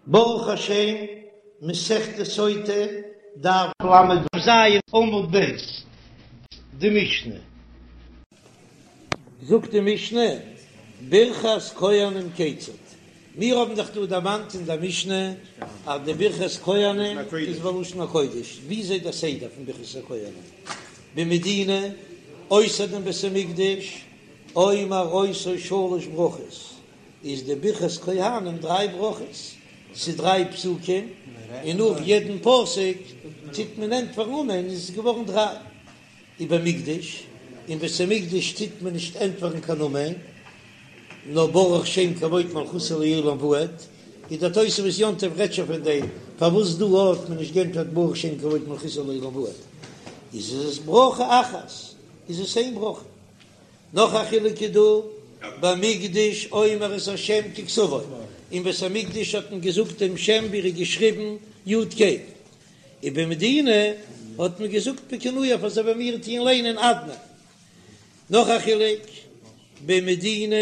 ברוך השם, מסכת סוטה, דף ל"ז עמוד ב', די משנה. זאגט די משנה, ברכת כהנים כיצד? מיר האבן דאך דא דערמאנט אין דער משנה אז די ברכת כהנים איז בלשון הקודש, וויאזוי דער סדר פון ברכת הכהנים במדינה, אויסער דעם בית המקדש, אומר אותו שלש ברכות, איז די ברכת כהנים דריי ברכות, ס'איז דריי פסוקים, און נאך יעדן פסוק טוט מען ענטפערן אמן, איז עס געווארן דריי. ובמקדש, אין בית המקדש טוט מען נישט ענטפערן קיין אמן, נאר ברוך שם כבוד מלכותו לעולם ועד, איז דער תוספות יום טוב רעדט שוין פון דעם, פארוואס דא האט מען נישט גענטפערט ברוך שם כבוד מלכותו לעולם ועד, איז עס ברכה אחת, איז עס איין ברכה. נאך א חילוק איז דא, במקדש אומר את השם ככתבו, אין בית המקדש האט מען געזאגט דעם שם ווי ער איז געשריבן י' ק', ובמדינה האט מען געזאגט בכינויו אזוי ווי מיר טוען ליינען אדני. נאך א חילוק, במדינה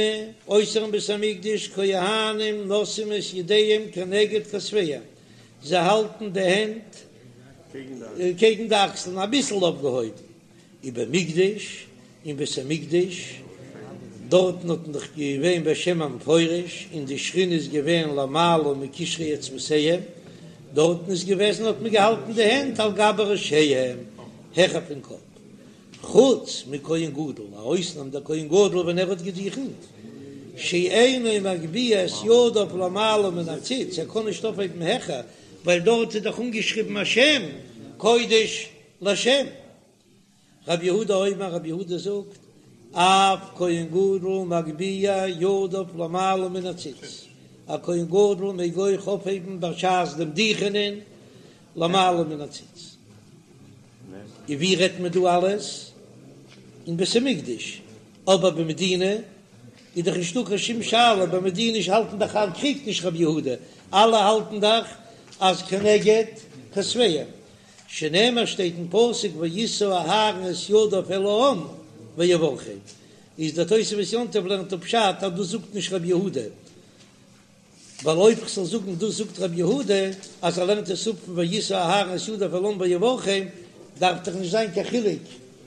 אויסערן בית המקדש כהנים נושאים את ידיהם כנגד כתפיהם, זיי האלטן די הענט קעגן די אקסלען אביסל אויפגעהויבן, ובמקדש, אין בית המקדש, דארטן האט מען דאך געווען בשם המפורש, און די שכינה איז געווען למעלה מקשרי אצבעותיהם, דארטן איז געוועזן האט מען געהאלטן די הענט על גבי ראשיהם, העכער פון קאפ, חוץ מכהן גדול, א אויסנאם דער כהן גדול ווען ער האט געדוכנט, שאינו מגביה את ידיו למעלה מן הציץ, ער קען נישט אויפהייבן העכער, ווייל דארט איז דאך אנגעשריבן א שם קודש לשם. רבי יהודה אומר, רבי יהודה זאגט, אף כהן גדול מגביה ידיו למעלה מן הציץ, א כהן גדול מעג אויך אויפהייבן בשעת דעם דוכענען למעלה מן הציץ. און ווי רעדט מען דא אלעס? אין בית המקדש, אבער במדינה איז דאך נישטא קיין שום שאלה, במדינה האלטן דאך אלע, קריגט נישט רבי יהודה, אלע האלטן דאך אז כנגד כתפיהם, שנאמר שטייט אין פסוק וישא אהרן את ידיו אל העם ויברכם, איז דער תוספות יום טוב לערנט אפ פשט אז דאס זאגט נישט רבי יהודה, ווייל אויב כ'זאל זאגן דאס זאגט רבי יהודה אז ער לערנט עס אפ פון וישא אהרן את ידיו אל העם ויברכם, דארף דאך נישט זיין קיין חילוק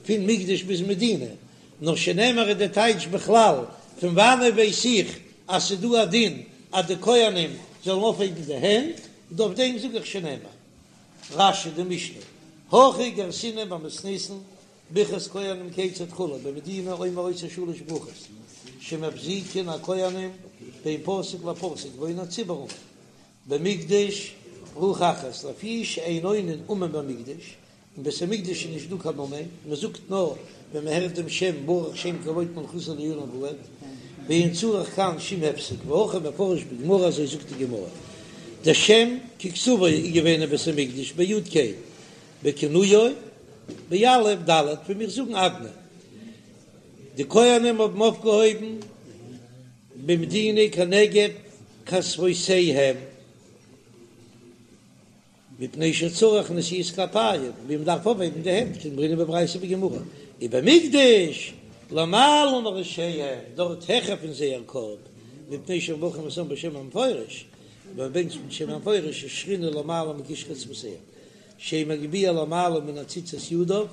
פון מקדש ביז מדינה, נאר שנאמר איז די טייטש בכלל, פון וואנעט ווייס איך אז ס'איז דא א דין אז די כהנים זאלן אויפהייבן די הענט, און אויף דעם זאג איך שנאמר. רש"י די משנה, הכי גרסינן במתניתין, ברכת כהנים כיצד כו', במדינה אומר אותו שלש ברכות, שמפסיקין הכהנים בין פסוק לפסוק ועונין הציבור אמן, במקדש ברכה אחת, לפי שאין עונין אמן במקדש, אין בית המקדש איז נישט דא קיין אמן, מען זאגט נאר ווען מען הערט דעם שם ברוך שם כבוד מלכותו לעולם ועד, ואין צריך כאן שום הפסק, והכי מפרש בגמרא אזוי זאגט די גמרא, דער שם ככתבו איז געווען אין בית המקדש ביו"ד ק' בכינויו באל"ף דל"ת ווי מיר זאגן אדני, די כהנים האבן אויפגעהויבן במדינה כנגד כתפותיהם. מפני שצריך נשיאת כפיים, ווי מען דארף אויפהייבן די הענט, כדאמרינן בברייתא ובגמרא, ובמקדש למעלה מראשיהם, דארט העכער פון זייער קאפ, מפני שמברכים את העם בשם המפורש, ווען מען בענטשט מיט שם המפורש איז שכינה למעלה מקשרי אצבעותיהם, שאין מגביה למעלה מן הציץ את ידיו,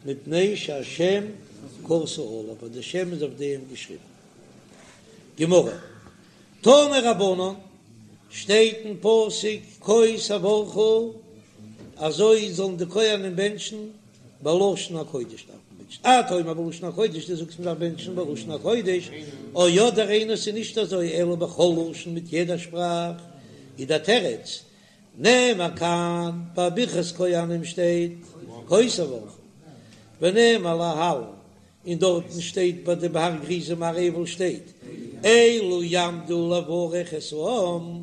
מפני שהשם כתוב עליו, ווייל דער שם איז אויף דעם געשריבן. גמרא. תנו רבנן, שטייט אין פסוק כה תברכו, אזוי זאלן די כהנים בענטשן בלשון הקודש דארף מען בענטשן, אתה אומר בלשון הקודש, דו זאגסט מען דארף בענטשן בלשון הקודש, או אדער אינו ס'איז נישט אזוי אלא בכל לשון מיט יעדע שפראך, איז דער תירוץ, נאמר כאן ביי ברכת כהנים שטייט כה תברכו, ונאמר להלן און דארטן שטייט ביי די בהר גריזים הר עיבל שטייט אלו יעמדו לברך את העם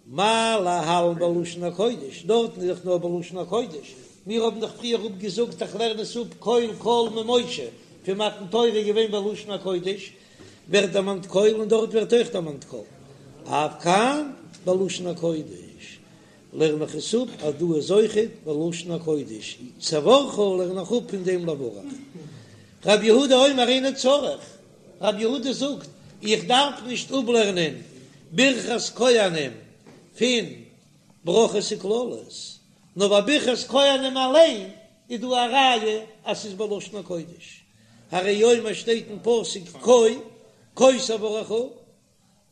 מה להלן בלשון הקודש, דארטן איז דאך נאר בלשון הקודש, מיר האבן דאך פריער אפגעזאגט איך לערן עס אפ קול קול ממשה פון מתן תורה איז געווען בלשון הקודש ווערט דערמאנט קול און דארט ווערט אויך דערמאנט קול אף כאן בלשון הקודש. לערן איך עס אפ אז דא איז אויכעט בלשון הקודש, תברכו לערן איך אפ פון דעם לברך. רב יהודה אומר אינו צריך, רב יהודה זאגט איך דארף נישט אפלערנען ברכת כהנים. פון ברכות וקללות, נאר ביי ברכת כהנים אליין איז דא א ראיה אז ס'איז בלשון הקודש, הרי הוא אומר שטייט אין פסוק כה כה תברכו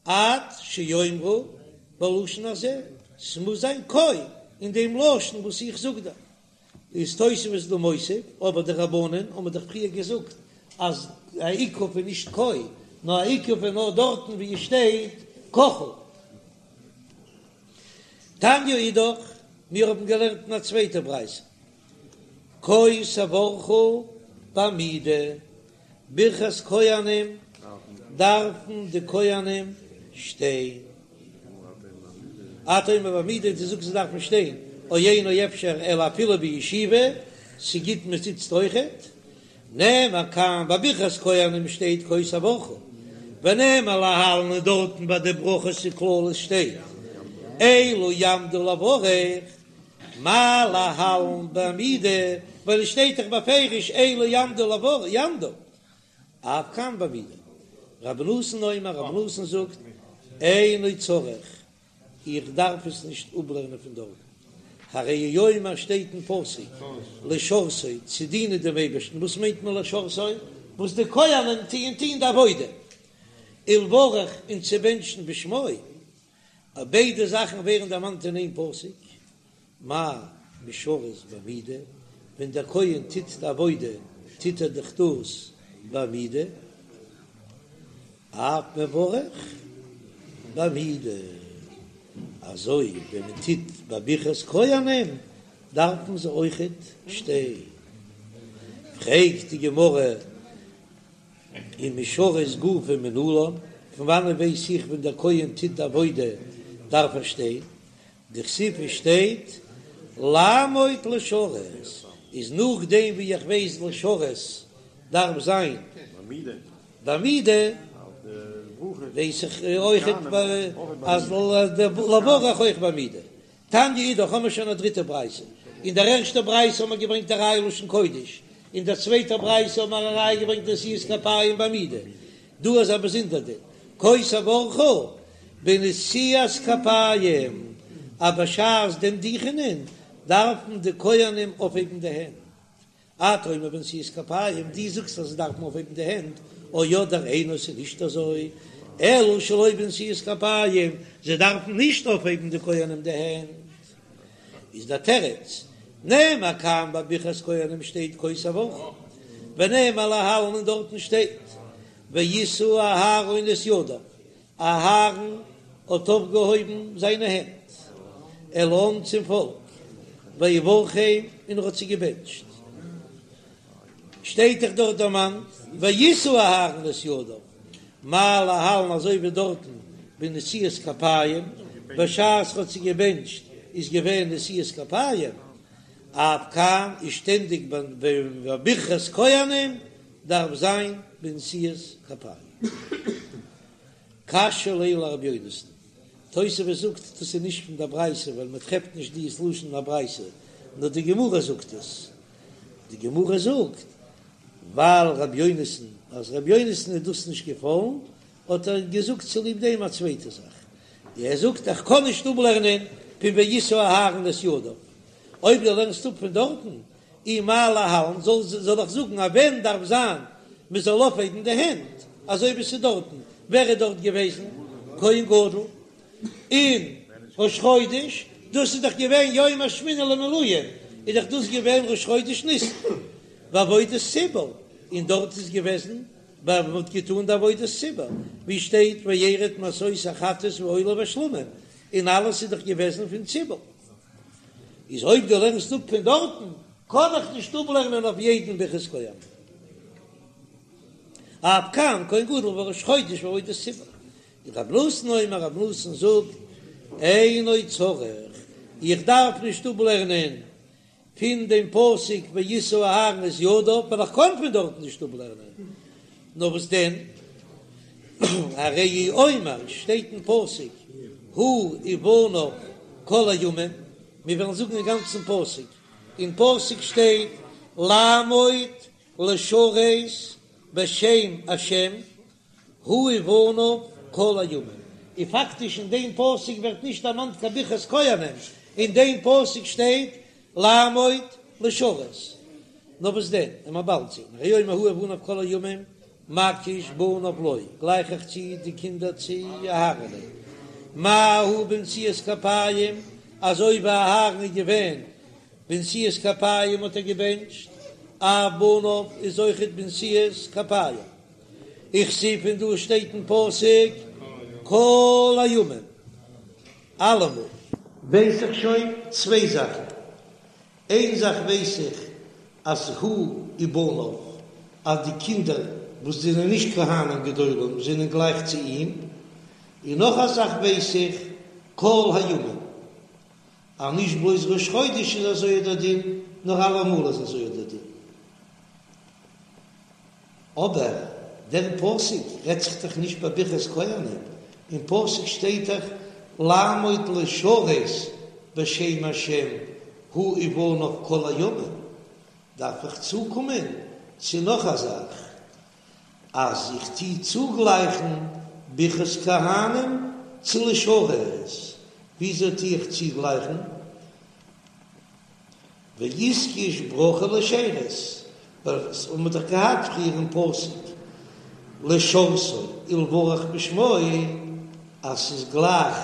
עד שיאמרו בלשון הזה, ס'מוז זיין כה אין דעם לשון וואס איך זאג דא. איז תוספות דא מוסיף, אבער די רבנן האבן דאך פריער געזאגט אז א עיכוב איז נישט כה, נאר א עיכוב איז נאר דארטן ווי עס שטייט ככה. תניא אידך, מיר האבן געלערנט אין א צווייטע ברייתא, כה תברכו בעמידה, ברכת כהנים דארפן די כהנים שטיין. אתה אומר בעמידה, דו זאגסט זיי דארפן שטיין, או אינו אפשר אלא אפילו בישיבה, ס'גוט מען זיצט אויכעט. נאמר כאן ביי ברכת כהנים שטייט כה תברכו, ונאמר להלן און דארטן ביי די ברכות וקללות שטייט אלו יעמדו לברך, מה להלן בעמידה, ווייל עס שטייט דאך בפירוש אלו יעמדו לברך, יעמדו, אף כאן בעמידה. רבי נתן אומר, רבי נתן זאגט, אינו צריך, איך דארף עס נישט אפלערנען פון דארטן, הרי הוא אומר שטייט אין פסוק לשרתו צו דינען דעם אייבערשטן, וואס מיינט מען לשרתו? וואס די כהנים טוען טוען די עבודה, ולברך און צו בענטשן בשמו, ביידע זאכן ווערן דערמאנט אין איין פסוק, מה משרת בעמידה, ווען דער כהן טוט די עבודה טוט ער דאך דאס בעמידה, אף מברך בעמידה, אזוי ווען מען טוט ביי ברכת כהנים דארפן זיי אויכעט שטיין. פרעגט די גמרא ומשרת גופא מנלן, פון וואנען ווייס איך ווען דער כהן טוט די עבודה דארף ער שטיין? דכתיב עס שטייט לעמוד לשרת, איז נאכדעם ווי איך ווייס לשרת דארף זיין בעמידה, ווייס איך אויכעט אז לברך אויך בעמידה. תניא אידך האמער שוין א דריטע ברייתא, אין דער ערשטער ברייתא האמער געברענגט א ראיה לשון קודש, אין דער צווייטער ברייתא האמער א ראיה געברענגט נשיאת כפיים בעמידה, דא איז א באזונדער דין, כה תברכו בנשיאת כפיים, אז בשעת דעם דוכענען דארפן די כהנים אויפהייבן די הענט, אתה אומר בנשיאת כפיים, דו זאגסט אז זיי דארפן אויפהייבן די הענט, או אדער אינו ס'איז נישט אזוי, אלא שלא בנשיאת כפיים, זיי דארפן נישט אויפהייבן די כהנים די הענט. איז דער תירוץ, נאמר כאן ביי ברכת כהנים שטייט כה תברכו, ונאמר להלן און דארטן שטייט וישא אהרן את ידיו, אהרן האט אויפגעהויבן זיינע הענט אל העם צום פאלק, ויברכם און ער האט זיי געבענטשט, שטייט דאך דארט דערמאנט וישא אהרן את ידיו, מה להלן אזוי ווי דארטן בנשיאת כפיים, בשעת ער האט זיי געבענטשט איז געווען נשיאת כפיים, אף כאן איז שטענדיג ביי ברכת כהנים דארף זיין בנשיאת כפיים. קשיא ליה לרבי יונתן, תוספות זאגט דאס איז נישט פון דער ברייתא ווייל מען טרעפט נישט דיעס לשון אין א ברייתא, נאר די גמרא זאגט עס, די גמרא זאגט ווייל רבי יונתן אז רבי יונתן איז דאס נישט געפאלן האט ער געזאגט צוליב דעם א צווייטע זאך, ער זאגט איך קען נישט אפלערנען פון וישא אהרן את ידיו, אויב דו לערנסט אפ פון דארטן אי מה להלן, זאל זאל איך זאגן אז ווען דארף זיין מען זאל אויפהייבן די הענט אזוי ווי ס'איז דארטן, ווער איז דארט געוועזן כהן גדול אין ראש חודש, דאס איז דאך געווען יום השמיני למילואים, איז דאך דאס געווען ראש חודש ניסן בעבודת ציבור, און דארט איז געוועזן ווען מען האט געטאן די עבודת ציבור, ווי שטייט וירד מעשות החטאת והעולה והשלמים, און אלעס איז דאך געוועזן פון ציבור. איז אויב דו לערנסט אפ פון דארטן, קען איך נישט אפלערנען אויף יעדן ברכת כהנים. אף כאן כהן גדול וראש חודש ועבודת ציבור. רב נתן אומר, רב נתן זאגט, אינו צריך, איך דארף נישט אפלערנען פון דעם פסוק וישא אהרן את ידיו, ווייל איך קען פון דארטן נישט אפלערנען. נאר וואס דען, הרי הוא אומר, שטייט אין פסוק, הוא ובניו כל הימים, מיר וועלן זאגן אין גאנצן פסוק, אין פסוק שטייט לעמוד לשרת בשם השם, הוא ובניו כל הימים. און פאקטיש אין דעם פסוק ווערט נישט דערמאנט קיין ברכת כהנים, אין דעם פסוק שטייט לעמוד לשרת. נאר וואס דען, און מ'וועט באלד זען, הוי אומר הוא ובניו כל הימים מקיש בניו לו, גלייך איך צו די קינדער צו אהרן'ען, מה הוא בנשיאת כפיים, אזוי ווי אהרן איז געווען בנשיאת כפיים האט ער געבענטשט, אף בניו איז אויכעט בנשיאת כפיים. וכתיב און דא שטייט אין פסוק כל הימים, אלעמאל. ווייס איך שוין צוויי זאכן, איין זאך ווייס איך אז הוא ובניו, אז די קינדער וואס זענען נישט כהנים גדולים זענען גלייך צו אים, און נאך א זאך ווייס איך כל הימים, אז נישט בלויז ראש חודש איז אזוי דער דין, נאר אלעמאל איז אזוי דער דין. אבער דער פסוק רעדט זיך דאך נישט ביי ברכת כהנים, אין פסוק שטייט דאך לעמוד לשרת בשם השם הוא ובניו כל הימים, דארף איך צוקומען צו נאך א זאך, אז איך טוה צוגלייכן ברכת כהנים צו לשרת, וויאזוי טוה איך צוגלייכן? ואיתקש ברכה לשירות, ווייל עס האבן מיר דאך געהאט פריער אין פסוק לשרתו ולברך בשמו אז ס'איז גלייך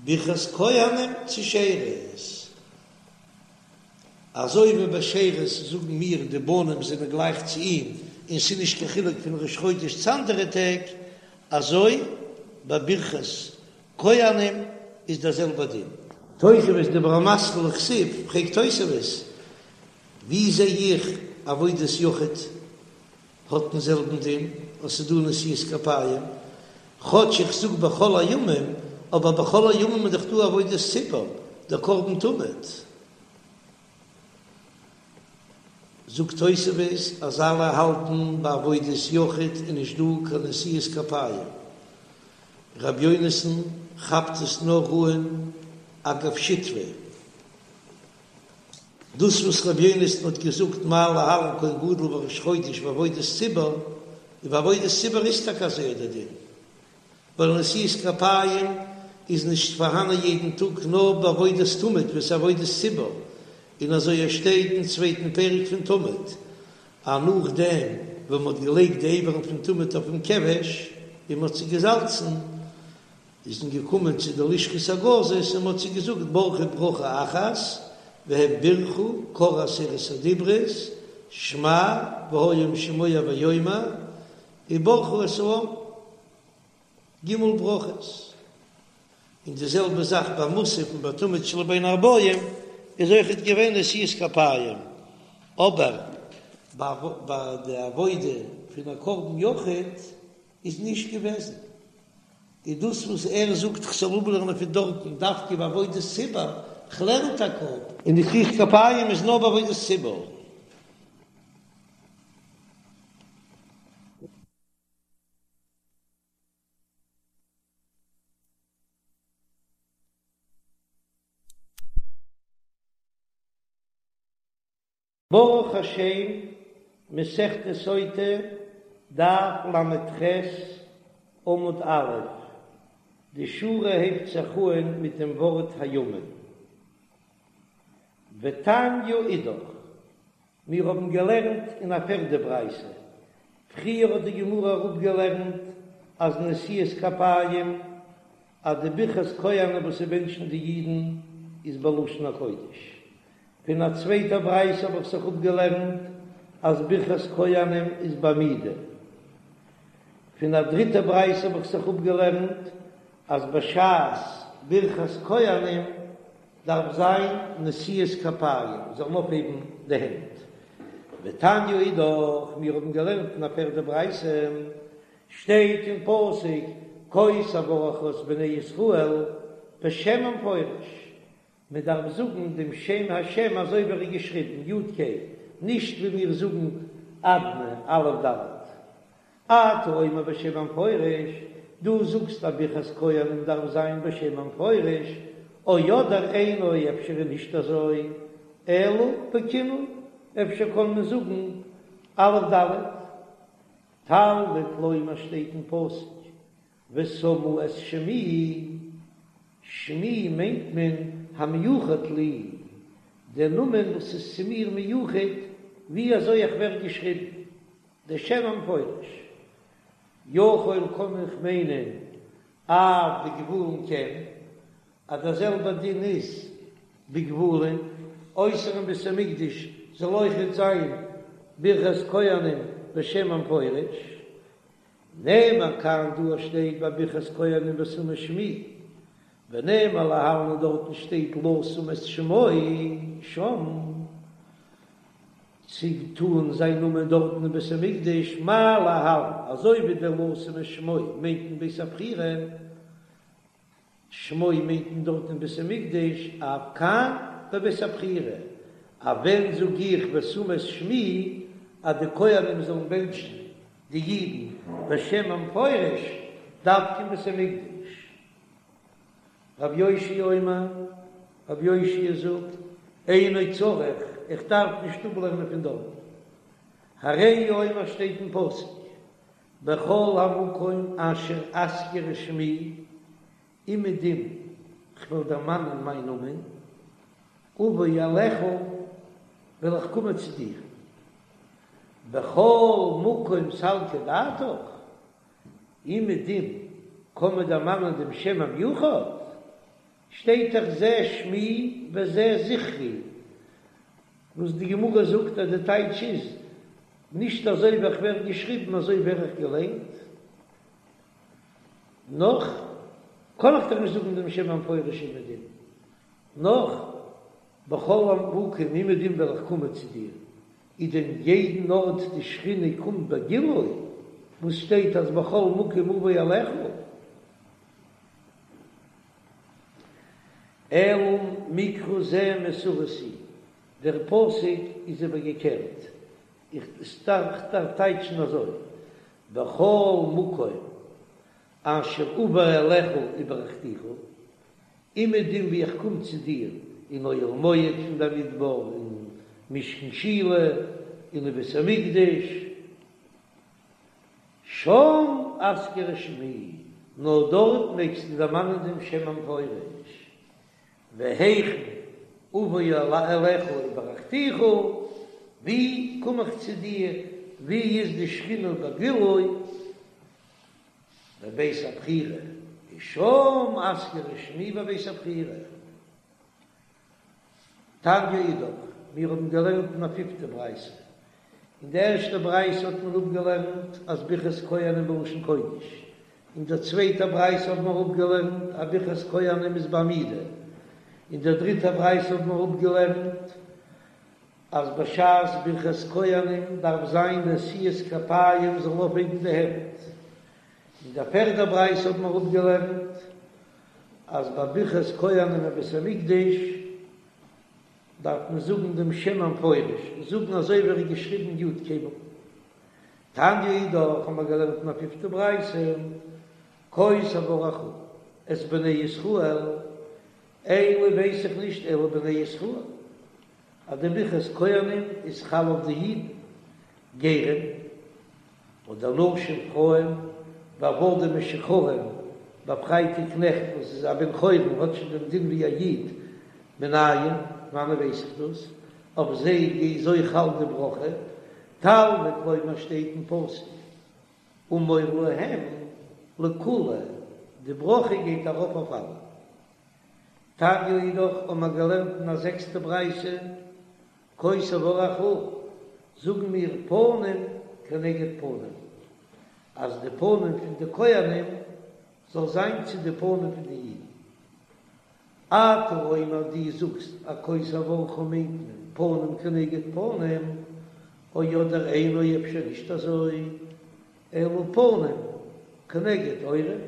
ברכת כהנים צו שירות, אזוי ווי ביי שירות זאגן מיר די בנים זענען גלייך צו אים און ס'איז נישט קיין חילוק פון ראש חודש צו אנדערע טעג, אזוי ביי ברכת כהנים איז דער זעלבער דין. תוספות דיבור המתחיל וכתיב, פרעגט תוספות, ווי זע איך עבודת יחיד האט דעם זעלבן דין אז ס'איז דא נשיאת כפיים, כאטש איך זאג בכל הימים, אבער בכל הימים איז דאך דא עבודת ציבור, דער קרבן תמיד. זאגט תוספות אז אלע האלטן ביי עבודת יחיד איז נישט דא קיין נשיאת כפיים, ר' יונתן כאפט עס נאר אן אגב שטפי, דאס וואס ר' יונתן האט געזאגט מה להלן כהן גדול וראש חודש ועבודת ציבור, און ביי עבודת ציבור איז טאקע אזוי דער דין, ווייל נשיאת כפיים איז נישט פארהאנען יעדן טאג נאר בעבודת תמיד וואס עבודת ציבור, און אזוי עס שטייט אין צווייטן פרק פון תמיד, אז נאכדעם ווען מ'האט געלייגט די אברים פון תמיד אויפן כבש און מ'האט זיי געזאלצן, איז מען געקומען צו די לשכת הגזית און מ'האט זיי געזאגט ברכו ברכה אחת, והם בירכו קראו עשרת הדיברות, שמע והיה אם שמוע ויאמר, וברכו את העם. ג' ברכות, און די זעלבע זאך ביי מוסף און ביי תמיד של בין הערבים איז אויכעט געווען נשיאת כפיים, אבער ביי די עבודה פון א קרבן יחיד איז נישט געוועזן, איז דאס וואס ער זאגט כ'זאל אפלערנען פון דארטן דווקא ביי עבודת ציבור, כ'לערן טאקע אפ. און נשיאת כפיים איז נאר ביי עבודת ציבור. ברוך השם, מסכת סוטה, דף ל"ח, עמוד א', די שורה הייבט זיך אהן מיט דעם ווארט הימים. ותניא אידך, מיר האבן געלערנט אין א פערדע ברייתא, פריער האט די גמרא אראפגעלערנט אז נשיאת כפיים, אז די ברכת כהנים וואס ס'בענטשן די אידן איז בלשון הקודש, פון א צווייטע ברייתא האב איך זיך אפגעלערנט אז ברכת כהנים איז בעמידה, פון א דריטע ברייתא האב איך זיך אפגעלערנט אז בשעת ברכת כהנים דארף זיין נשיאת כפיים, זאלן אויפהייבן די הענט. ותניא אידך, מיר האבן געלערנט אין א פערדע ברייתא, שטייט אין פסוק כה תברך את בני ישראל בשם המפורש, מען דארף זאגן דעם שם השם אזוי ווי ער איז געשריבן, יוד קיי, נישט ווי מיר זאגן אדני, אלף דלת. אתה אומר בשם המפורש, דו זאגסט אז ברכת כהנים דארף זיין בשם המפורש, או אדער אינו אפשר איז נישט אזוי, אלא בכינוי, אפשר קען מען זאגן אלף דלת. תלמוד לומר שטייט אין פסוק. ושמו את שמי, שמי מיינט מען המיוחד לי, דער נאמען וואס איז צו מיר מיוחד, ווי אזוי איך ווער געשריבן, דער שם המפורש. יכול קען איך מיינען אף בגבולין כן, אז דער זעלבער דין איז בגבולין, אויסערן בית המקדש זאל אויכעט זיין ברכת כהנים בשם המפורש. נאמר כאן דא שטייט ביי ברכת כהנים ושמו שמי, ונאמר להלן און דארטן שטייט לשום את שמו שם, צו טאן זיין נאמען דארטן אין בית המקדש, מה להלן, אזוי ווי דער לשום את שמו מיינט אין בית הבחירה, שמו מיינט מען דארט אין בית המקדש, אף כאן בבית הבחירה, אז ווען זאג איך ושמו את שמי אז די כהנים זאלן בענטשן די אידן בשם המפורש דווקא אין בית המקדש. רב יאשיה אומר, רב יאשיה זאגט, אינו צריך, איך דארף נישט אפלערנען פון דארט, הרי הוא אומר שטייט אין פסוק, בכל המקום אשר אזכיר את שמי, אומעדום כ'וועל דערמאנען מיין נאמען, אבוא אליך, וועל איך קומען צו דיר. בכל מקום סלקא דעתך, אומעדום קען מען דערמאנען דעם שם המיוחד, שטייט דאך זה שמי וזה זכרי, וואס די גמרא זאגט אז די טייטש איז, נישט אזוי ווי איך ווער געשריבן אזוי ווער איך געליינט. נאך קען איך דאך נישט זאגן דעם שם המפורש אומעדום. נאך בכל המקום אומעדום וועל איך קומען צו דיר, איז דען יעדן ארט די שכינה קומט בגילוי, וואס שטייט אז בכל מקום אבוא אליך? אלא מקרא זה מסורס הוא, דער פסוק איז איבערגעקערט, איך דארף טייטשן אזוי, בכל מקום אשר אבוא אליך וברכתיך, אומעדום ווי איך קום צו דיר אין אוהל מועד פון במדבר, אין משכן שילה, און אין בית המקדש, שם אזכיר את שמי, נאר דארט מעגסטו דערמאנען דעם שם המפורש, והיכן אבוא אליך וברכתיך, ווי קום איך צו דיר, ווי איז די שכינה בגילוי, בבית הבחירה, ושם אזכיר את שמי בבית הבחירה. תניא אידך, מיר האבן געלערנט אין א פיפטע ברייתא. אין די ערשטע ברייתא האט מען אפגעלערנט אז ברכת כהנים בלשון קודש. אין דער צווייטער ברייתא האבן מיר אפגעלערנט אז ברכת כהנים איז בעמידה. אין דער דריטער ברייתא האבן מיר אפגעלערנט אז בשעת ברכת כהנים דארף זיין נשיאת כפיים זאלן אויפהייבן די הענט. אין דער פערדער ברייתא האבן מיר אפגעלערנט אז ביי ברכת כהנים אין בית המקדש דארף מען זאגן דעם שם המפורש, זאגן אזוי ווי ער איז געשריבן יוד קיי וואו. תניא אידך האבן מיר געלערנט אין א פיפטע ברייתא, כה תברכו את בני ישראל, אין לי ווייס איך נישט אלא בני ישראל, אז די ברכת כהנים איז חל אויף די אידן, גרים, אדער נשים פרויען, ועבדים משוחררים, באפרייטע קנעכט וואס איז א בן חורין האט שוין דעם דין ווי א איד, מנין, וואנען ווייס איך דאס? אויף זיי איז אויך חל די ברכה, תלמוד לומר שטייט אין פסוק אמור להם לכולהו, די ברכה גייט ארויף אויף אלע. תניא אידך האבן מיר געלערנט אין א זעקסטע ברייתא, כה תברכו, זאגן מיר פנים כנגד פנים, אז די פנים פון די כהנים זאל זיין צו די פנים פון די אידן. אתה אומר דו זאגסט אז כה תברכו מיינט מען פנים כנגד פנים, או אדער אינו אפשר נישט אזוי, אלא פנים כנגד עורף.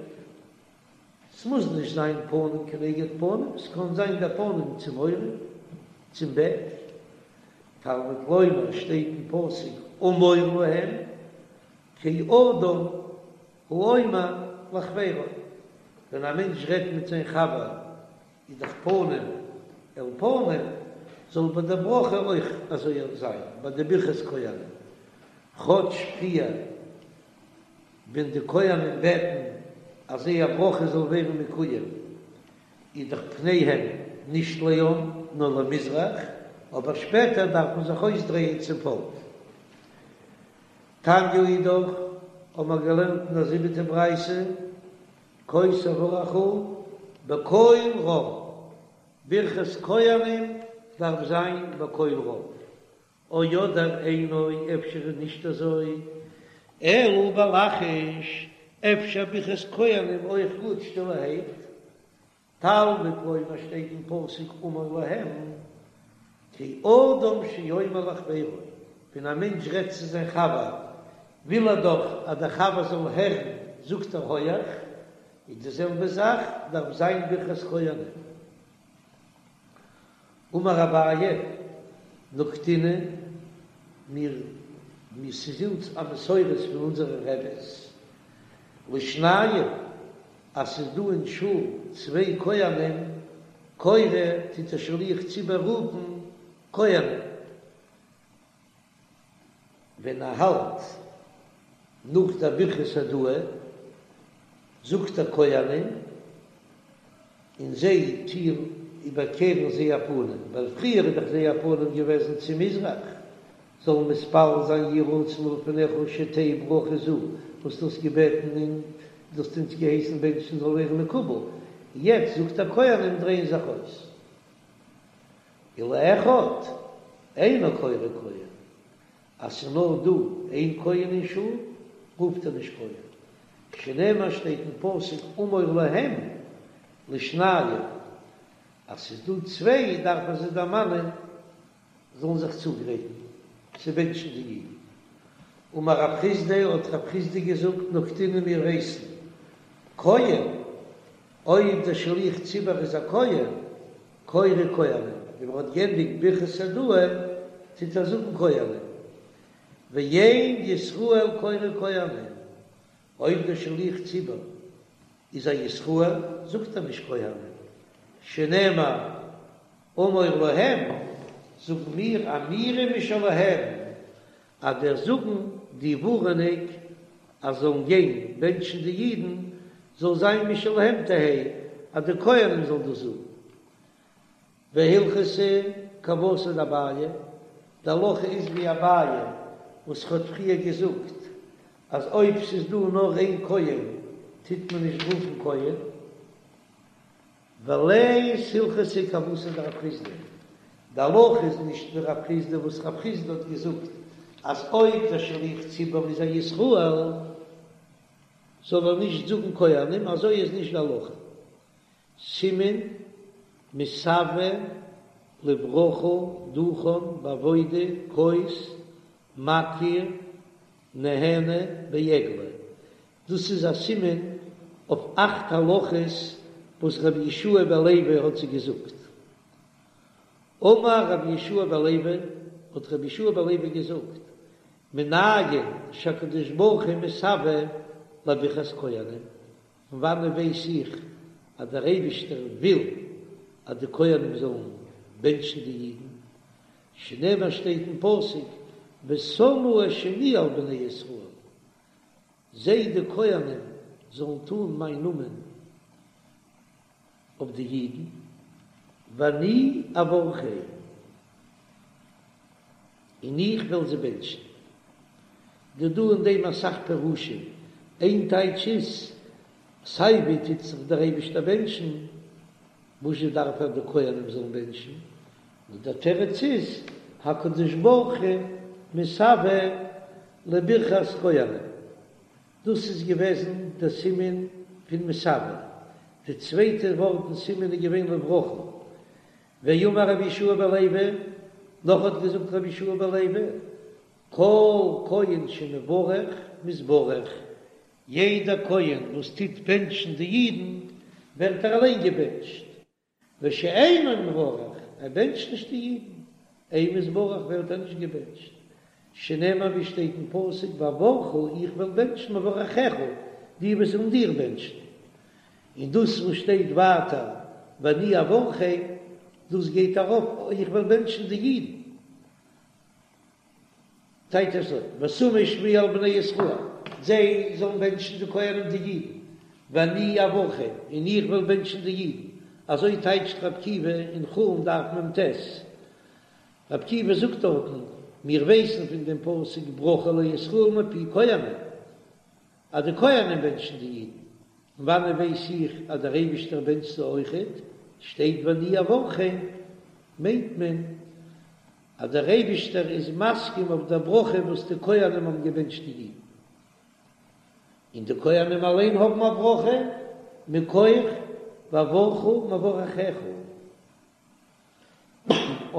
ס'מוז נישט זיין פנים כנגד פנים, ס'קען זיין די פנים צום עורף, צום בעק. תלמוד לומר שטייט אין פסוק אמור להם כאדם האומר לחבירו, ווען א מענטש רעדט מיט זיין חבר איז דאך פנים אל פנים, זאל ביי די ברכה אויך אזוי זיין, ביי די ברכת כהנים, כאטש פריער ווען די כהנים בעטן. אז זייער ברכה זאל ווערן מקוים, איז דאך פניהם נישט לעם נאר למזרח, אבער שפעטער דארף מען זיך אויסדרייען צום פאלק. תניא אידך, האבן מיר געלערנט אין א זיבעטע ברייתא, כה תברכו בקול רם, ברכת כהנים דארף זיין בקול רם, או אדער אינו, אפשר איז נישט אזוי, אלא בלחש, אפשר ברכת כהנים אויך גוט שטילערהייט, תלמוד לומר שטייט אין פסוק אמור להם, כאדם שאומר לחבירו, ווען א מענטש רעדט צו זיין חבר וויל ער דאך אז דער חבר זאל הערן, זאגט ער הויעך, איז די זעלבע זאך דארף זיין ברכת כהנים. אמר אביי, נקטינן, מיר, מיר ס'איז אונז א מסורת פון אונזערע רעבעס, לשניים, אז ס'איז דא אין שול צוויי כהנים, קורא טוט דער שליח ציבור רופן כהנים, ווען ער האלט נאך דער ברכת הודאה זאגט ער כהנים און זיי טוען איבערקערן זייער פנים, ווייל פריער איז דאך זייער פנים געוועזן צו מזרח, זאלן מתפלל זיין יהי רצון מלפניך שתהא ברכה זו, וואס דו האסט געבעטן און דו האסט אונז געהייסן בענטשן זאל ווערן מקובל, יעצט זאגט ער כהנים דרייען זיך אויס. ולאחד אינו קורא כהן, אז ס'איז נאר דא איין כהן אין שול, רופט ער נישט כהן, שנאמר שטייט אין פסוק אמור להם לשניים, אז ס'איז דא צוויי דארף מען זיי דערמאנען זאלן זיך צוגרייטן צו בענטשן די אידן. אמר רב חסדא, האט רב חסדא געזאגט, נקטינן מיר ווייסן, כהן, אויב דער שליח ציבור איז א כהן, קורא כהנים, ווען מען האט גענדיגט ברכת הודאה טוט ער זאגן כהנים, ואין ישראל קורא כהנים, אויב דער שליח ציבור איז א ישראל זאגט ער נישט כהנים, שנאמר אמור להם, זאגן מיר אמירה משלהם, אז דער זאגן די ווארענונג אז זאלן גיין בענטשן די אידן זאל זיין משלהם תהא, אז די כהנים זאלן דאס זאגן. והלכתא כוותיה דאביי, די הלכה איז ווי אביי וואס האט פריער געזאגט אז אויב ס'איז דא נאר איין כהן טוט מען נישט רופן כהן. ולית הלכתא כוותיה דרב חסדא, די הלכה איז נישט ווי רב חסדא וואס רב חסדא האט געזאגט אז אויב דער שליח ציבור איז א ישראל זאל ער נישט זאגן כהנים, אזוי איז נישט די הלכה. סימן מתאוה לברכה דוכן בעבודה כוס מכיר נהנה בעגלה, דאס איז א סימן אויף אכט הלכות וואס רבי יהושע בן לוי האט זיי געזאגט. אמר רבי יהושע בן לוי, האט רבי יהושע בן לוי געזאגט, מנין שהקדוש ברוך הוא מתאוה לברכת כהנים, פון וואנען ווייס איך אז דער אייבישטער וויל אז די כהנים זאלן בענטשן די אידן? שנאמר שטייט אין פסוק ושמו את שמי על בני ישראל, זיי די כהנים זאלן טאן מיין נאמען אויף די אידן, ואני אברכם, און איך וועל זיי בענטשן. דא דא אין דעם אסאך פירושים, איין טייטש איז, סיי ווי טוט זיך דער אייבישטער בענטשן, וואזשע דארף ער די כהנים זאלן בענטשן? נאר דער תירוץ איז, הקדוש ברוך הוא מתאוה לברכת כהנים. דאס איז געוועזן דער סימן פון מתאוה. די צווייטע ווארט אין סימן איז געווען לברכה. ואמר רבי יהושע בן לוי, נאך האט געזאגט רבי יהושע בן לוי, כל כהן שמברך מתברך, יעדער כהן וואס טוט בענטשן די אידן, ווערט ער אליין געבענטשט, ושאינו מברך, ער בענטשט נישט די אידן, אין מתברך ווערט ער נישט געבענטשט, שנאמר ווי שטייט אין פסוק ואברכה איך וועל בענטשן מברכיך, די וואס וועלן דיר בענטשן, און דאס וואס שטייט ווייטער ואני אברכם, דאס גייט ארויף איך וועל בענטשן די אידן. טייטש אזוי, ושמו שמי על בני ישראל, זיי זאלן בענטשן די כהנים די אידן, ואני אברכם, און איך וועל בענטשן די אידן, אזוי טייטשט רבי עקיבא אין חולין דף מ"ט. רבי עקיבא זאגט דארטן, מיר ווייסן פון דעם פסוק ברכה לישראל מפי כהנים, אז די כהנים בענטשן די אידן, פון וואנען ווייס איך אז דער אייבישטער בענטשט זיי אויכעט? שטייט ואני אברכם, מיינט מען אז דער אייבישטער איז מסכים אויף דער ברכה וואס די כהנים האבן געבענטשט די אידן, און די כהנים אליין האבן א ברכה מכח ואברכה מברכיך.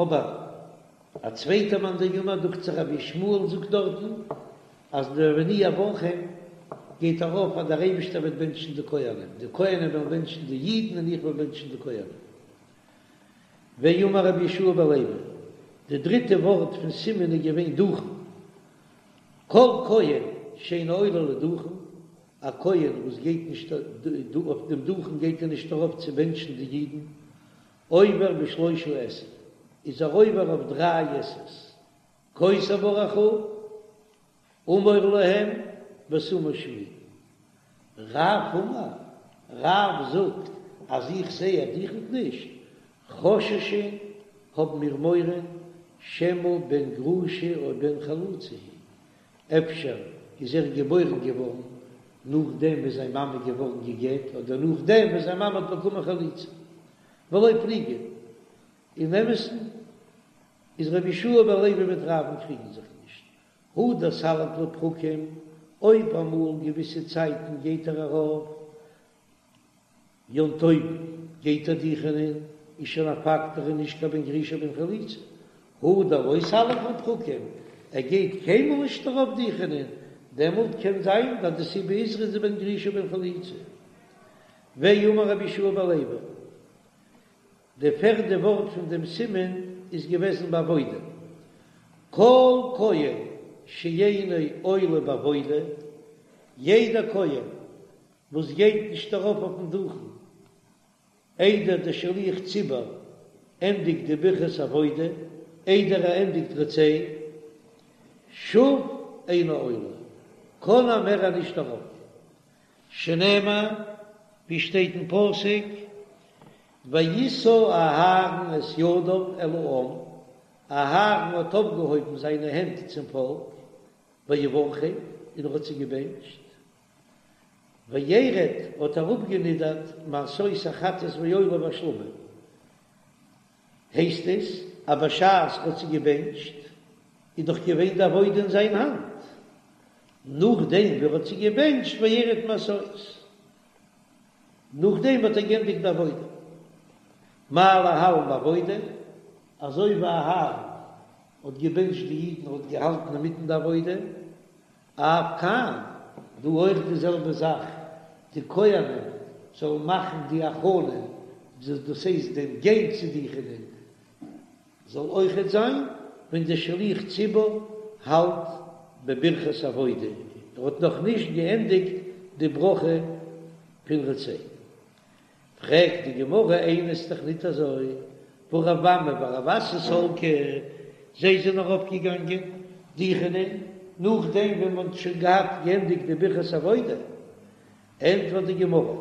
אבער א צווייטע מאן דאמר, דוכט זיך רבי ישמעאל זאגט דארטן אז דער ואני אברכם גייט ארויף אז דער אייבישטער וועט בענטשן די כהנים, די כהנים וועלן בענטשן די אידן און איך וועל בענטשן די כהנים. ואמר רבי יהושע בן לוי, די דריטע ווארט פון סימן איז געווען דוכן, כל כהן שאינו עולה לדוכן, א כהן וואס גייט נישט אויף דעם דוכן גייט ער נישט ארויף צו בענטשן די אידן, עובר בשלושה עשה, איז ער עובר אויף דריי עשה'ס, כה תברכו, אמור להם, ושמו שמי. רב אמר, רב זאגט אז איך זע ער דוכנט נישט, חוששין האבן מיר מורא שמא בן גרושה או בן חלוצה הוא, אפשר איז ער געבוירן געווארן נאכדעם וואס זיין מאמע איז געווארן גע'גט אדער נאכדעם וואס זיין מאמע האט באקומען חליצה. ולא פליגי, אין אמת'ן איז רבי יהושע בן לוי מיט רב'ן קריגן זיך נישט, הא דסליק לפרקים, אויב אמאל געוויסע צייטן גייט ער ארויף יום טוב גייט ער דוכענען, איז שוין א פאקט ער איז נישט קיין בן גרושה בן חלוצה, הא דלא סליק לפרקים, ער גייט קיינמאל נישט ארויף דוכענען, דעמאלט קען זיין אז די סיבה איז ער איז בן גרושה בן חלוצה. ואמר רבי יהושע בן לוי, די פערדע ווארט פון דעם סימן איז געוועזן בעבודה, כל כהן שאינו עולה בעבודה, יעדער כהן וואס גייט נישט ארויף אויפן דוכן איידער דער שליח ציבור ענדיגט די ברכת עבודה, איידער ער ענדיגט רצה, שוב אינו עולה, קען ער מער נישט ארויף, שנאמר, ווי שטייט אין פסוק, וישא אהרן את ידיו אל העם, אהרן האט אויפגעהויבן זיינע הענט צום פאלק, ויברכם, און ער האט זיי געבענטשט. וירד האט אראפגענידערט מעשות החטאת והעולה והשלמים, הייסט עס אז בשעת ער האט זיי געבענטשט איז דאך געווען די עבודה אין זיין האנט, נאכדעם ווי ער האט זיי געבענטשט וירד מעשות, נאכדעם האט ער גענדיגט די עבודה, מה להלן בעבודה, אזוי ווי אהרן האט געבענטשט די אידן האט געהאלטן אינמיטן די עבודה, אף כאן, דא אויך די זעלבע זאך, די כהנים זאלן מאכן די הכנה, דאס הייסט דעם גיין צו דוכענען, זאל אויכעט זיין ווען דער שליח ציבור האלט בברכת עבודה, ער האט נאך נישט געענדיגט די ברכה פון רצה. פרעגט די גמרא איני ס'איז דאך ניט אזוי, והא רב אמי ורב אסי סלקי, זיי זענען ארויפגעגאנגען דוכענען נאכדעם ווען מען האט שוין געהאט געענדיגט די ברכת עבודה, ענטפערט די גמרא,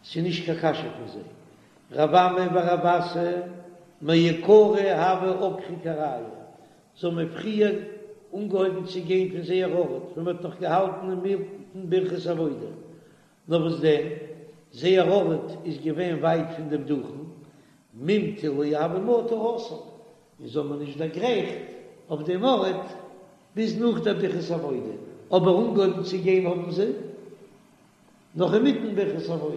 ס'איז נישט קיין קשיא פון זיי, רב אמי ורב אסי מעיקרא הוו עקרי כרעייהו, זיי האבן פריער אנגעהויבן צו גיין פון זייער ארט ווען מען האט נאך געהאלטן אינמיטן ברכת עבודה, נאר וואס דען, זייער ארט איז געווען ווייט פון דעם דוכן, ממטא לא הוה מטו התם, און זיי האבן נישט דערגרייכט אויף דעם ארט ביז נאך דער ברכת עבודה, אבער אנגעהויבן צו גיין האבן זיי נאך אינמיטן ברכת עבודה,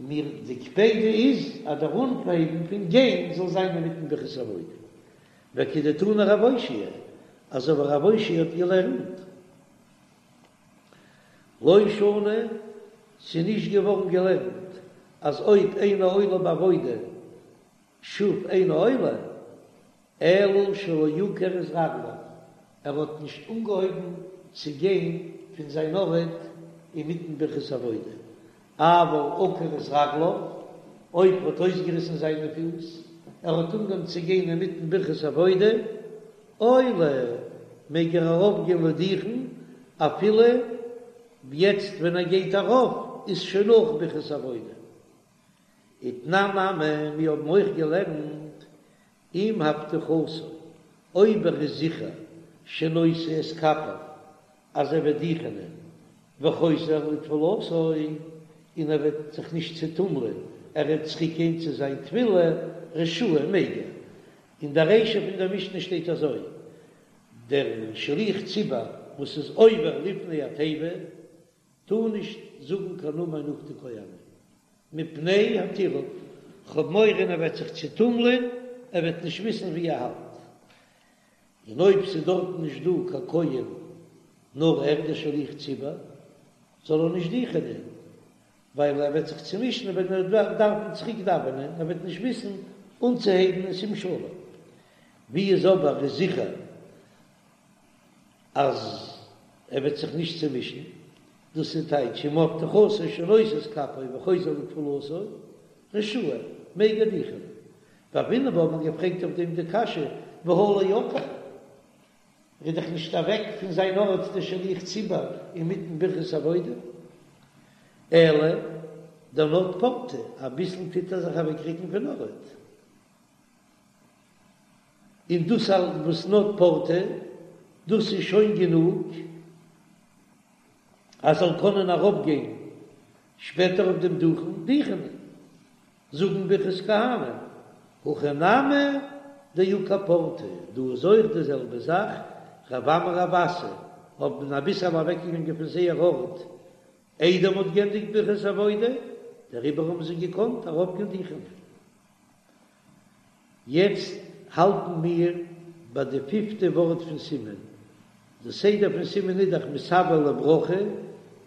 און מיר די קפידא איז אז דער אנהייבן פון גיין זאל זיין אינמיטן ברכת עבודה, וכדתני רב אושעיא, אזוי ווי רב אושעיא האט געלערנט. לא שנו, ס'איז נישט געווארן געלערנט אז אויב אינו עולה בעבודה שוב אינו עולה, אלא שלא עקר את רגליו, ער האט נישט אנגעהויבן צו גיין פון זיין ארט אינמיטן ברכת עבודה, אבל עקר את רגליו, אויב ער האט אויסגעריסן זיינע פיס, ער האט אנגעהויבן צו גיין אינמיטן ברכת עבודה, עולה, מעג ער ארויפגיין לדוכן אפילו יעצט ווען ער גייט ארויף. איז שוין נאך ברכת עבודה. ותנן נמי, מיר האבן אויך געלערנט אם הבטחתו, אויב ער איז זיכער שנושא את כפיו אז ער וועט דוכענען וחוזר לתפילתו, און ער וועט זיך נישט צעטומלען, ער וועט צוריקגיין צו זיין תפילה, רשאי מעג ער. אין דער רישא פון דער משנה שטייט אזוי, דער שליח ציבור וואס איז עובר לפני התיבה טאר נישט זאגן קיין אמן נאך די כהנים, מפני הטירוף, כ'האב מורא ער וועט זיך צעטומלען, ער וועט נישט וויסן ווי ער האלט. און אויב ס'איז דארטן נישט דא קיין כהן נאר ער דער שליח ציבור, זאל ער נישט דוכענען, ווייל ער וועט זיך צומישן ווען ער וועט דארפן צוריק דאווענען, ער וועט נישט וויסן אנצוהייבן אין שים שלום. ווי איז אבער איז זיכער אז ער וועט זיך נישט צומישן, דאס איז טייטש אם הבטחתו שנושא את כפיו וחוזר לתפילתו, רשאי, מעג ער דוכענען. והוינן בה האט מען געפרעגט אויף דעם די קשיא, והא לא עקר, ער איז דאך נישט אוועק פון זיין ארט דער שליח ציבור אינמיטן ברכת עבודה, אלא דנד פורתא, אביסל טוט ער זיך אוועקרוקן פון ארט, און דאס וואס נד פורתא, דאס איז שוין גענוג אז זאל קענען ארויפגיין שפעטער אויף דעם דוכן דוכענען. זאגן ברכת כהנים, הכא נמי דעקר פורתא, דא איז אויך די זעלבע זאך, רב אמי רב אסי האבן אביסעל אוועקגעגאנגען פון זייער ארט איידער מ'האט גענדיגט ברכת עבודה, דעריבער האבן זיי געקאנט ארויפגיין דוכענען. יעצט האלטן מיר ביי די פיפטע ווארט פון סימן, די סדר פון סימן איז דאך מתאוה לברכה,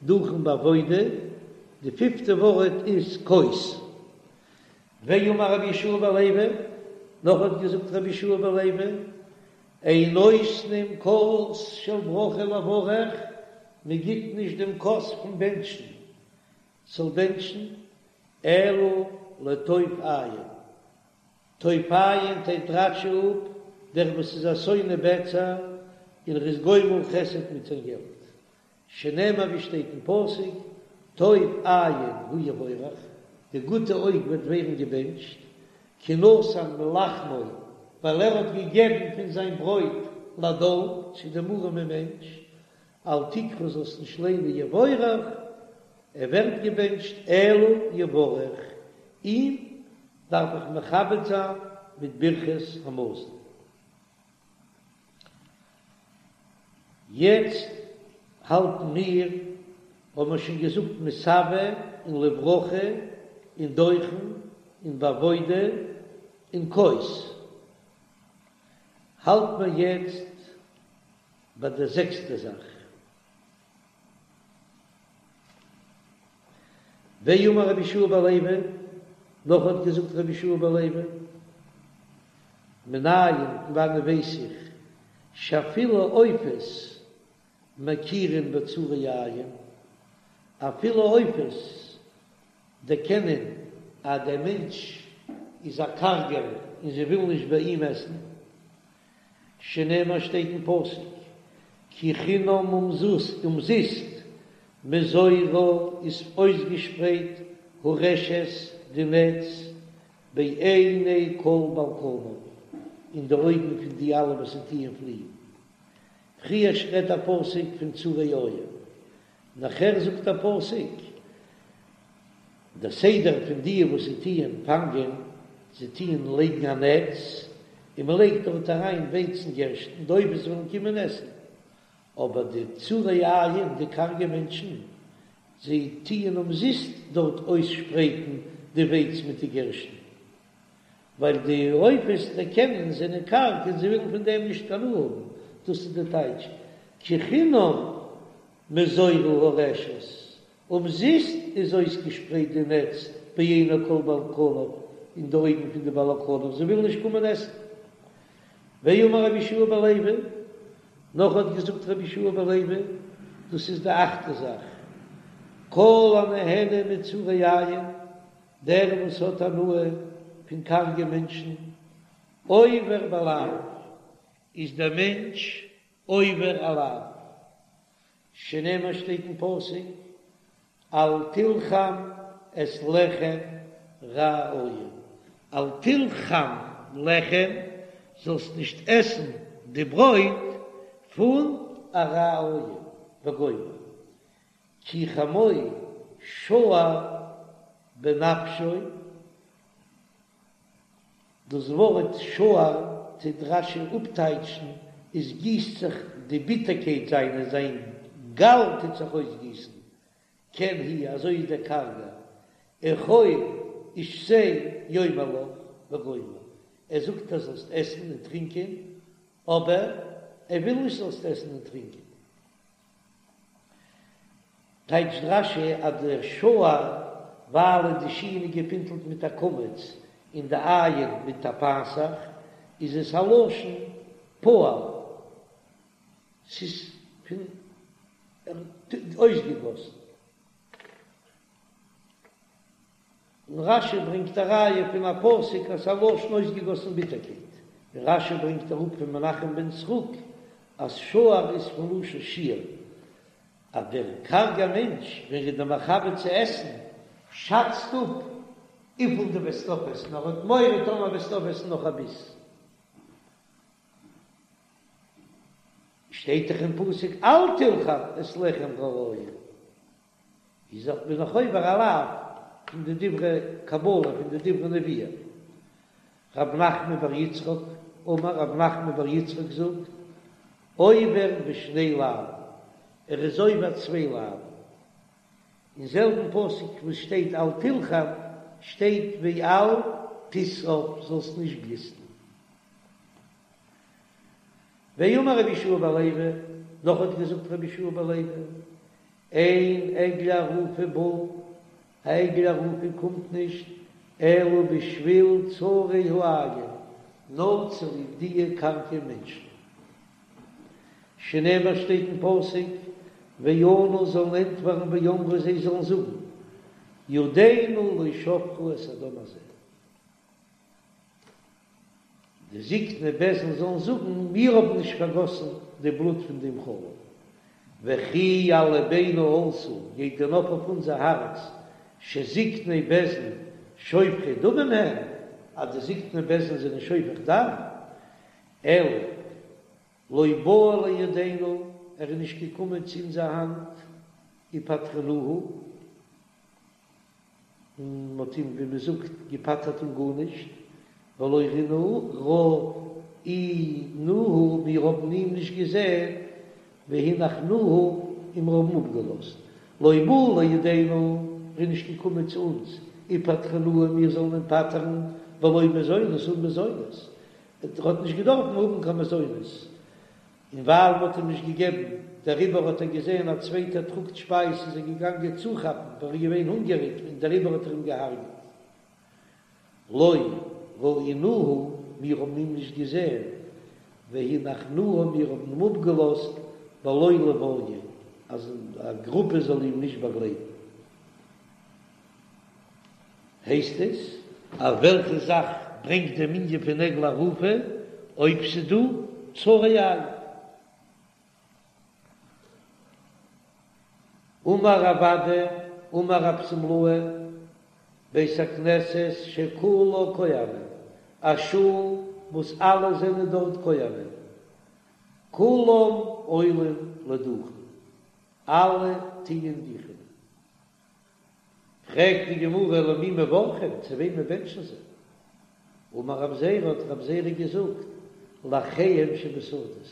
דוכן בעבודה, די פיפטע ווארט איז כוס. ואמר רבי יהושע בן לוי, נאך האט געזאגט רבי יהושע בן לוי, אין נותנים כוס של ברכה לברך, מען גיט נישט דעם כוס פון בענטשן זאל בענטשן, אלא לטוב עין. טוב עין טייטשט רש"י אפ דער וואס איז א שונא בצע און ער איז גומל חסד מיט זיין געלט, שנאמר ווי שטייט אין פסוק, טוב עין הוא יבורך, די גוטע אויג וועט ווערן געבענטשט, כי נתן מלחמו, ווייל ער האט געגעבן פון זיין ברויט לדל, צו דעם ארעמען מענטש, אל תקרא זאלסט נישט ליינען יבורך, ער ווערט געבענטשט, אלא יברך, אים דארף איך מכבד זיין מיט ברכת המזון. יעצט האלטן מיר, האבן מיר שוין געזאגט מתאוה און לברכה און דוכן און בעבודה און כוס, האלט מיר יעצט ביי די זעקסטע זאך. ואמר רבי יהושע בן לוי, נאך האט געזאגט רבי יהושע בן לוי, מנין, פון וואנען ווייס איך, שאפילו עופות מכירין בצרי עין, אפילו עופות דערקענען אז דער מענטש איז א קארגער און זיי ווילן נישט ביי אים עסן, שנאמר שטייט אין פסוק כי חינם אומזיסט מזורה איז אויסגעשפרייט הרשת די נעץ בעיני כל בעל כנף אין די אויגן פון די אלע וואס זיי טוען פליען. פריער רעדט א פסוק פון צרי עין, נאכער זאגט א פסוק דער סדר פון די וואס זיי טוען פאנגען, זיי טוען לייגן א נעץ, און מען לייגט דארט אריין ווייץ און גערשטן, די עופות וועלן קומען עסן. אבער די צרי עין, די קארגע מענטשן, זיי טוען אומזיסט דארט אויסשפרייטן די ווייץ מיט די גערשטן, ווייל די עופות דערקענען זענען קארג און זיי ווילן פון דעם נישט הנאה האבן, דאס איז די טייטש כי חינם מזורה הרשת, אומזיסט איז אויסגעשפרייט די נעץ בעיני כל בעל כנף, אין די אויגן פון די בעלי כנף, זיי ווילן נישט קומען עסן. ואמר רבי יהושע בן לוי, נאך האט געזאגט רבי יהושע בן לוי, דאס איז די אכטע זאך, כל הנהנה מצרי עין, דער וואס האט הנאה פון קארגע מענטשן, עובר בלאו, איז דער מענטש עובר א לאו. שנאמר שטייט אין פסוק. אל תלחם את לחם רע עין, אל תלחם לחם, זאלסט נישט עסן די ברויט פון א רע עין, וגומר, כי חמו שער בנפשו, דאס ווארט שער טוט רש"י אפטייטשן עס גיסט זיך די ביטערקייט זיינע, זיין גאל טוט זיך אויסגיסן, כן הוא, אזוי איז דער קארגער, אכול ושתה יאמר לך וגומר, ער זאגט אז זאלסט עסן און טרינקען, אבער ער וויל נישט זאלסט עסן און טרינקען. טייטשט רש"י אז דער שער ווייל די שין איז געפינטלט מיט א קמץ און די עין מיט א פתח איז עס א לשון פועל, ס'איז פון אויסגעגאסן. און רש"י ברענגט א ראיה פון א פסוק אז ס'איז א לשון אויסגעגאסן ביטערקייט, און רש"י ברענגט אראפ פון מנחם בן סרוק אז שער איז פון לשון שיעור, אז דער קארגער מענטש ווען ער איז דיר מכבד צו עסן שאצט אפ וויפיל דו וועסט אויפעסן, ער האט מורא טאמער וועסטו אויפעסן נאך א ביס. שטייט דאך אין פסוק אל תלחם את לחם רע עין. איז דאך בין איך עובר א לאו פון די דברי קבלה פון די דברי נביאים. רב נחמן בר יצחק אמר רב נחמן בר יצחק זאגט, עובר בשני לאוין, ער איז עובר צוויי לאוין. אין זעלבן פסוק וואס שטייט אל תלחם שטייט ואל תתאו זאלסט נישט גליסטן. ואמר רבי יהושע בן לוי, נאך האט געזאגט רבי יהושע בן לוי, אין עגלה ערופה באה, א עגלה ערופה קומט נישט אלא בשביל צרי העין, נאר צוליב דיע קארגע מענטשן. שנאמר שטייט אין פסוק, וענו זאלן ענטפערן ואמרו זיי זאלן זאגן, ידינו לא שפכו את הדם הזה. די זקני בית דין זאלן זאגן, מיר האבן נישט פארגאסן די בלוט פון דעם חלל, וכי על לבנו עלתה, גייט דען ארויף אויף אונזער הארץ, שזקני בית דין שופכי דמים הם, אז די זקני בית דין זענען שופך דם, אלא לא בא לידינו, ער איז נישט געקומען צו אונזער האנט, ופטרנוהו. און מ'האט אים ווי מ'זאגט געפטר'ט אן גארנישט, ולא ראינוהו, מיר האבן אים נישט געזען, והנחנוהו, און מיר האבן אפגעלאזט, לא בא לידינו, ער איז נישט געקומען צו אונז, ופטרנוהו, מיר זאלן אים פטר'ן, בלא מזונות אן מזונות, ער האט נישט געדארפן האבן קיין מזונות, און ווייל מ'האט אים נישט געגעבן, דעריבער האט ער געזען א צווייטער טראגט שפייז איז ער געגאנגען צוכאפן, ווייל ער איז געווען הונגעריג און דעריבער האט ער אים געהארגעט. לא ראינוהו, מיר האבן אים נישט געזען, והנחנוהו, מיר האבן אים אפגעלאזט, בלא לוויה, אז א גרופע זאל אים נישט באגלייטן. הייסט עס אז וועלכע זאך ברענגט דעם ענין פון עגלה ערופה אויב ס'דא צרי עין? אמר רב אדא אמר רב שמלאי בית הכנסת שכולה כהנים, א שול וואס אלע זענען דארט כהנים, כולם עולים לדוכן, אלע טוען דוכענען. פרעגט די גמרא למי מברכים, צו וועמען בענטשן זיי? אמר רב זירא, האט רב זירא געזאגט, לאחיהם שבשדות,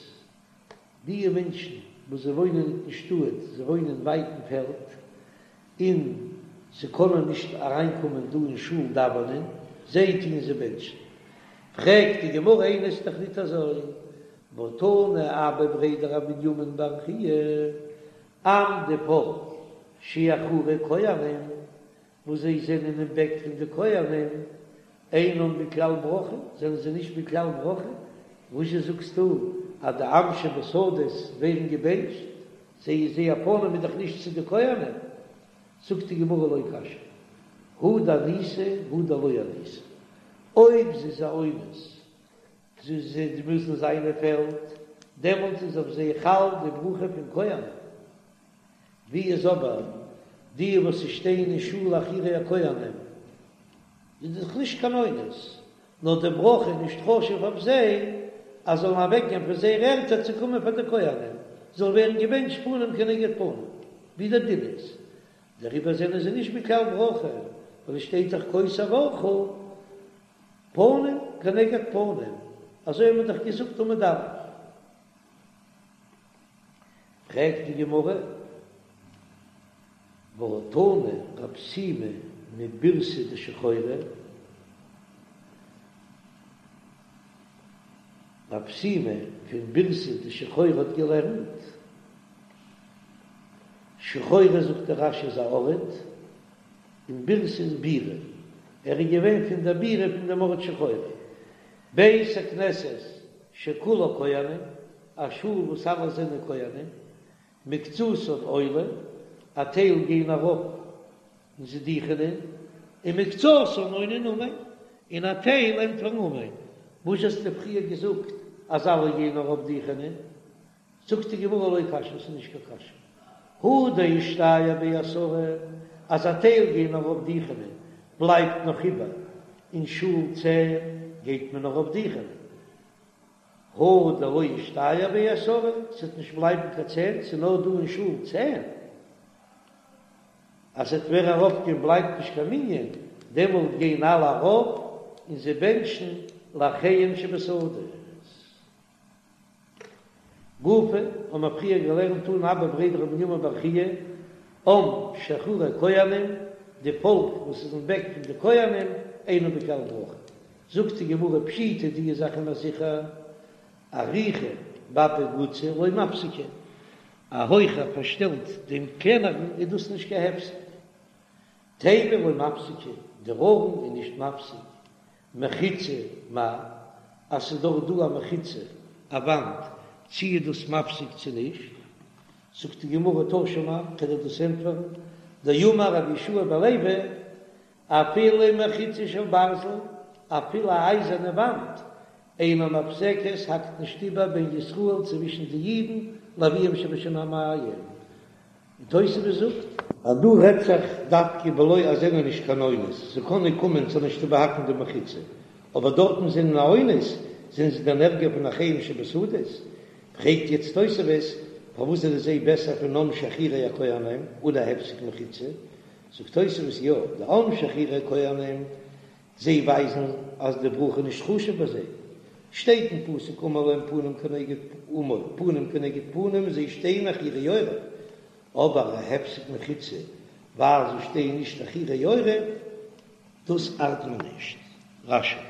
די מענטשן וואס זיי וואוינען ניט אין שטאט, זיי וואוינען ווייט אין פעלד, און זיי קענען נישט אריינקומען דא אין שול דאווענען, זיי טוען זיי בענטשן. פרעגט די גמרא איני, ס'איז דאך ניט אזוי, והא תנא אבא בריה דרב בנימין בר חייא, עם די פאלק שאחורי כהנים וואס זיי זענען אין בעק פון די כהנים, אינם בכלל ברכה, זענען זיי נישט בכלל ברכה, וואזשע זאגסטו אז די עם שבשדות ווערן געבענטשט, זיי זייער פנים איז דאך נישט צו די כהנים, זאגט די גמרא לא קשיא, הא דאניסי הא דלא אניסי, אויב זי איז א אונס זיי מוזן זיין אין פעלד, דעמאלט איז אויף זיי חל די ברכה פון כהנים. ווי איז אבער. די וואס שטייען אין שול אחורי הכהנים איז דאך נישט קיין אונס, נאר די ברכה איז נישט חשוב אויף זיי אז זאלן אוועקגיין פון זייערע ערטער צו קומען פאר די כהנים, זאל ווערן געבענטשט פנים כנגד פנים, ווי דער דין איז, דעריבער זענען זיי נישט בכלל ברכה, ווייל עס שטייט דאך כה תברכו פנים כנגד פנים, אזוי האט מען דאך געזאגט עמוד א'. פרעגט די גמרא, והא תנא רב שימי מבירתא דשחורי, רב שימי פון בירתא דשחורי האט געלערנט, שחורי זאגט דער רש"י איז א ארט, און בירתא איז בירה, ער איז געווען פון דער בירה פון דעם ארט שחורי, בית הכנסת שכולו כהנים, א שול וואס אלע זענען כהנים, מקצתן עולין, א טייל גייען ארויף און זיי דוכענען, און מקצתן עונין אמן, און א טייל ענטפערן אמן. וואס האסטו פריער געזאגט אז אלע גייען ארויף דוכענען? זאגט די גמרא לא קשיא, ס'איז נישט קיין קשיא, הא דאישתייר בי עשרה, אז א טייל גייען ארויף דוכענען, בלייבט נאך איבער אין שול צען, גייט מען ארויף דוכענען. הא דלא אישתייר בי עשרה, ס'וועט נישט בלייבן קיין צען, ס'איז נאר דא אין שול צען, אז ס'וועט ווער ארויפגיין בלייבט נישט קיין מנין, דעמאלט גייען אלע ארויף און זיי בענטשן לאחיהם שבשדות. גופא, האבן מיר פריער געלערנט תנא אבא בריה דרב מנימין בר חייא, עם שאחורי כהנים, די פאלק וואס איז אין בעק פון די כהנים, אינו בכלל ברכה. זאגט די גמרא פשיטא די זאך איז זיכער, אריכא באפי גוצא לא מפסקא, א הויכער פארשטעלט דעם קלענערן איז דאס נישט קיין הפסק. תיבה לא מפסקא, דער ארון איז נישט מפסיק, מחיצה מאי, אז ס'איז דאך דא א מחיצה, א וואנט, צי איז דאס מפסיק צו נישט? זאגט די גמרא תא שמע, כ'וועל דיר דאס ענטפערן, דאמר רבי יהושע בן לוי, אפילו מחיצה של ברזל, אפילו א אייזערנע וואנט, אינה מפסקת, האקט נישט איבער בין ישראל צווישן די אידן לאביהם שבשמים. און תוספות זאגט. אז דא רעדט זיך דווקא בלא אז זענען נישט קיין אונס, זיי קענען קומען ס'זאל נישט איבערהאקן די מחיצה, אבער דארטן זענען א אונס, זענען זיי דען ערגער פון אחיהם שבשדות? פרעגט יעצט תוספות, פארוואס זענען זיי בעסער פון עם שאחורי הכהנים אן א הפסק מחיצה? זאגט תוספות יא, די עם שאחורי הכהנים זיי ווייזן אז די ברכה איז נישט חשוב ביי זיי, שטייט אין פסוק אמור להם פנים כנגד אמור פנים כנגד פנים זיי שטייען אחורי עורף, אבער א הפסק מחיצה ווייל זיי שטייען נישט אחורי עורף, דאס ארט מען נישט. רש"י.